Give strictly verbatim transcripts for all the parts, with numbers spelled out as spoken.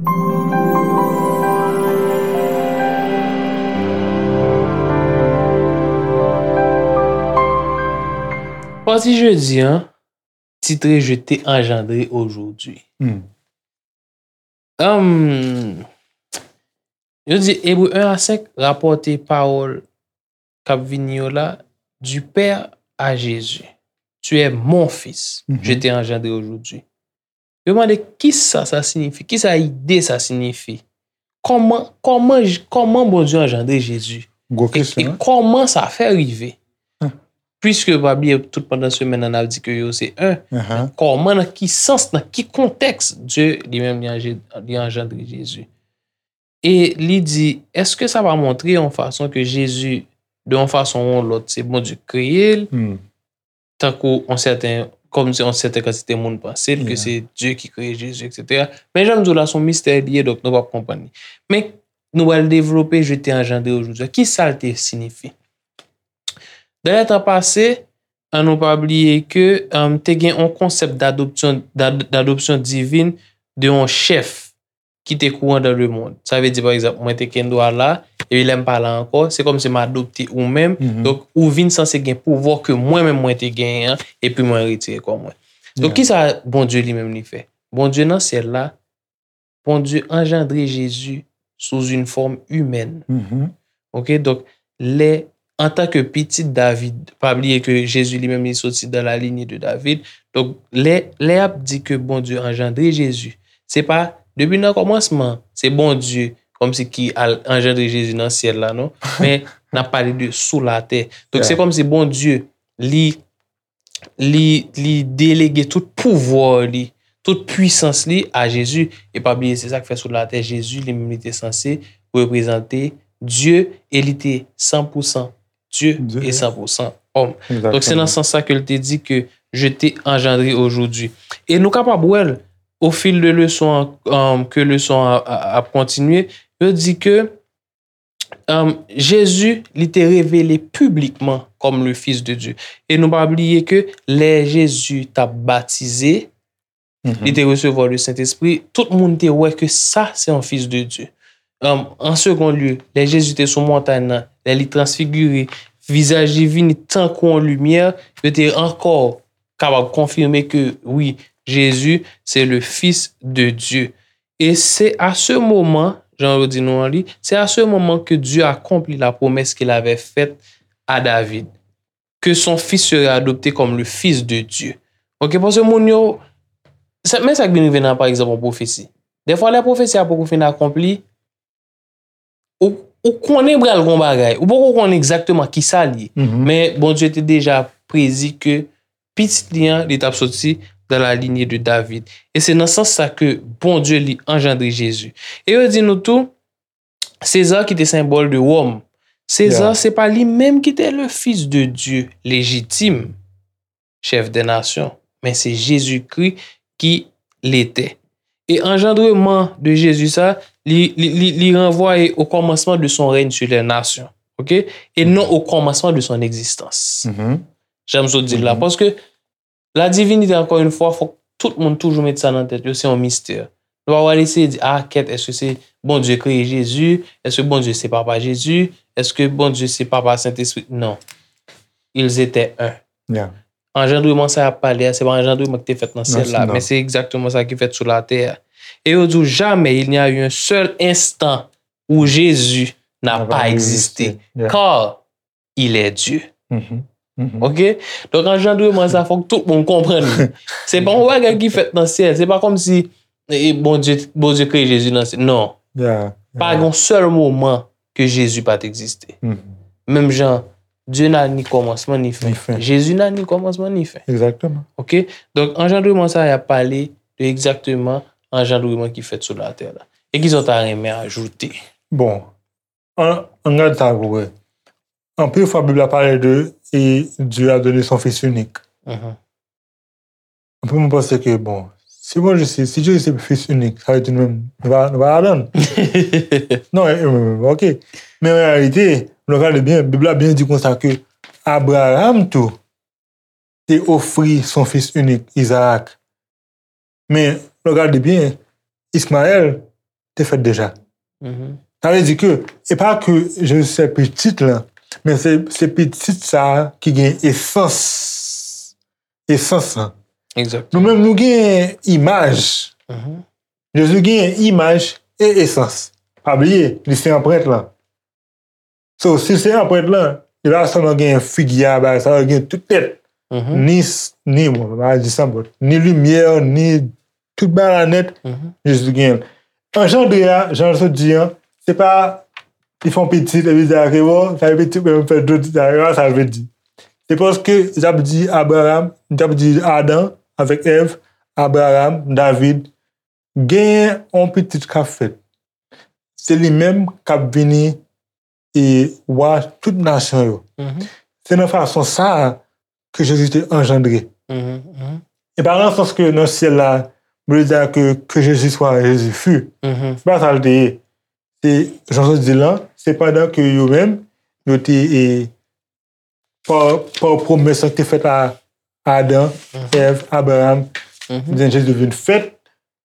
Pati jedi an, titre Je t'ai engendré aujourd'hui. Hmm. Hum, yo di Ebre en a senk rapòte pawòl k ap vini yo la, du Père à Jésus. Tu es mon fils, je t'ai engendré aujourd'hui. Yo mande kisa sa siyifi, kisa ide sa siyifi. Kòman, kòman, kòman Bondye anjandre Jezi? Gwo kesyon, e kòman sa fè rive? Piske pa bliye tout pandan semèn nan n ap di ke yo se en. Kòman, nan ki sans, nan ki kontèks Dye li menm li anje-, li anjandre Jezi? E li di, èske sa pa montre yon fason ke Jezi, de yon fason ou yon lòt, se Bondye k kreye l, tankou yon sèten, kòmsi yon sèten kantite moun panse l, ke se Dye ki kreye Jezi, etsetera. Men jan m di w la, se yon mistè li ye, donk nou p ap konprann li. Men nou pral devlope Je t'ai engendré aujourd'hui. Kisa l te siyifi? Dan lè tan pase, an nou pa bliye ke, um, te gen yon konsèp d'adoption, d'ad-, d'adoption divine de yon chèf ki te kouran dans le monde. Sa vle di, pa egzanp, mwen te kendwa la, epi lè m pa la ankò, se kòmsi m adopte ou menm. Donk, ou vin sanse gen pouvwa ke mwen menm mwen te genyen an, epi mwen retire kò mwen. Donk, kisa Bondye li menm li fè? Bondye nan syèl la, Bondye anjandre Jezi sou yon fòm imèn. Ok, donk, lè, antanke pitit David, pa bliye ke Jezi li menm li soti dans la lignée de David. Donk, lè, lè y ap di ke Bondye anjandre Jezi, se pa depi nan kòmansman, se Bondye kòmsi ki al anjandre Jezi nan syèl la, non. Men, n ap pale de sou latè. Donk, se kòmsi Bondye, li li, li delege tout pouvwa li, tout pwisans li a Jezi. E pa bliye, se sa k fè sou latè, Jezi li menm li te sanse reprezante Dye e li te san pou san Dye e san pou san òm. Donk, se nan sans sa ke l te di ke Je t'ai engendré aujourd'hui. E nou kapab wè l, au fil de leson an, um, ke leson an a, a, ap kontinye, yo di ke um, Jezi, li te revele piblikman kòm le Fils de Dieu. E nou pa bliye ke lè Jezi t ap batize, li te resevwa le Sentespri, tout moun te wè ke sa se yon Fils de Dieu. Um, an segon lye, lè Jezi te sou montay nan, lè li transfigire, vizaj li vini tankou yon limyè, yo te ankò kapab konfime ke, wi, Jezi se le Fils de Dieu. Et c'est à ce moment, jan yo di nou an li, c'est à ce moment que Dieu accomplit la promesse qu'il avait faite à David, que son fils serait adopté comme le fils de Dieu. Ok, paske moun yo, sa, men sa k vin rive nan, pa egzanp, yon pwofesi. Dèfwa, lè pwofesi a poko fin akonpli, ou, ou konnen pral gon bagay. Ou poko konnen egzakteman kisa l ye. Men Bondye te deja predi ke pitit li an, li t ap soti dans la lignée de David. E se nan sans sa ke Bondye li anjandre Jezi. E yo di nou tou, Seza ki te senbòl de Wòm. Seza, se pa li menm ki te le Fils de Dieu légitime, chef des nations, men se Jezikri ki l ete. E anjandreman de Jezi sa, li, li, li, li ranvwaye au commencement de son règne sur les nations. Ok? Et non au commencement de son existence. Jan m sot di l la. Paske la divinite, encore une fois, fòk tout moun toujou met sa nan tèt yo, se yon mistè. Nou pa pral eseye di, ah, kèt, èske se Bondye kreye Jezi? Èske Bondye se papa Jezi? Èske Bondye se papa Sentespri? Non. Ils étaient un. Anjandreman sa y ap pale a, se pa anjandreman ki te fèt nan syèl la, men se egzakteman sa ki fèt sou latè a. E yo di w, jamais il n'y a eu un seul instant où Jésus n'a pas existé, car il est Dieu. Ok? Donk, anjandreman sa, fòk tout moun konprann li. Se pa yon bagay ki fèt nan syèl. Se pa kòmsi, e, Bondye, Bondye kreye Jezi nan syèl. Non. Pa gen yon sèl moman ke Jezi pa t egziste. Menm jan, Dieu n'a ni commencement ni fin. Jezi n'a ni commencement ni fin. Ok? Donk, anjandreman sa, y ap pale de egzakteman anjandreman ki fèt sou latè la. E kisa w ta renmen ajoute? Bon, an, ann gade sa pou wè. Anpil fwa, Bib la pale de, et Dieu a donné son Fils unique. Anpil moun panse ke, bon, si Bondye se, si Jezi se Fils unique, sa vle di nou menm, nou pa, nou pa ladan l. Non, e, e, ok. Men an reyalite, lè w gade byen, Bib la byen di konsa ke Abraram tou te ofri son fis inik, Izarak. Men, lè w gade byen, Ismayèl, te fèt deja. Sa vle di ke, e pa ke Jezi se pitit lan, men se, se pitit sa a ki gen esans, esans lan. Nou menm, nou gen imaj. Jezi gen imaj e esans. Pa bliye, li se anprent lan. So, si se anprent lan, li pa sèlman gen figi a, bagay sa, li gen tout nèt. Ni, ni, bon, pa di san bòt. Ni limyè, ni tout bagay la nèt, Jezi gen l. Anjandre a, jan l sot di an, se pa li fè yon pitit, epi di, "Ake, bon, sa e pitit, men m fè dlo di sa," se pa sa l vle di. Se paske, y ap di Abraham, y ap di Adan avèk Èv, Abraham, David, genyen yon pitit k ap fèt. Se li menm k ap vini e wa tout nasyon yo. Se nan fason sa a ke Jezi te anjandre. E pa nan sans ke nan syèl la, Bondye di ke, que Jésus soit, Jésus fut. Se pa sa l te ye. Se, jan Jezi di lan, se pandan ke yo menm, yo te, e, pa, pa pwomès ki te fèt a Adan, Èv, Abraham, jan Jezi vin fèt,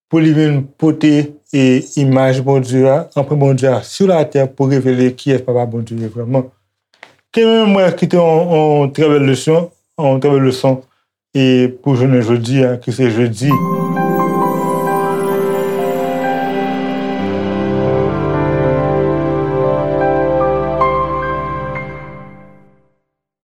pou li vin pote, e, imaj Bondye a, anprent Bondye a sou latè pou revele kiyès Papa Bondye ye vrèman. Ke menm mwen kite yon, yon trè bèl leson, yon trè bèl leson, e pou jounen jodi a, ki se jedi.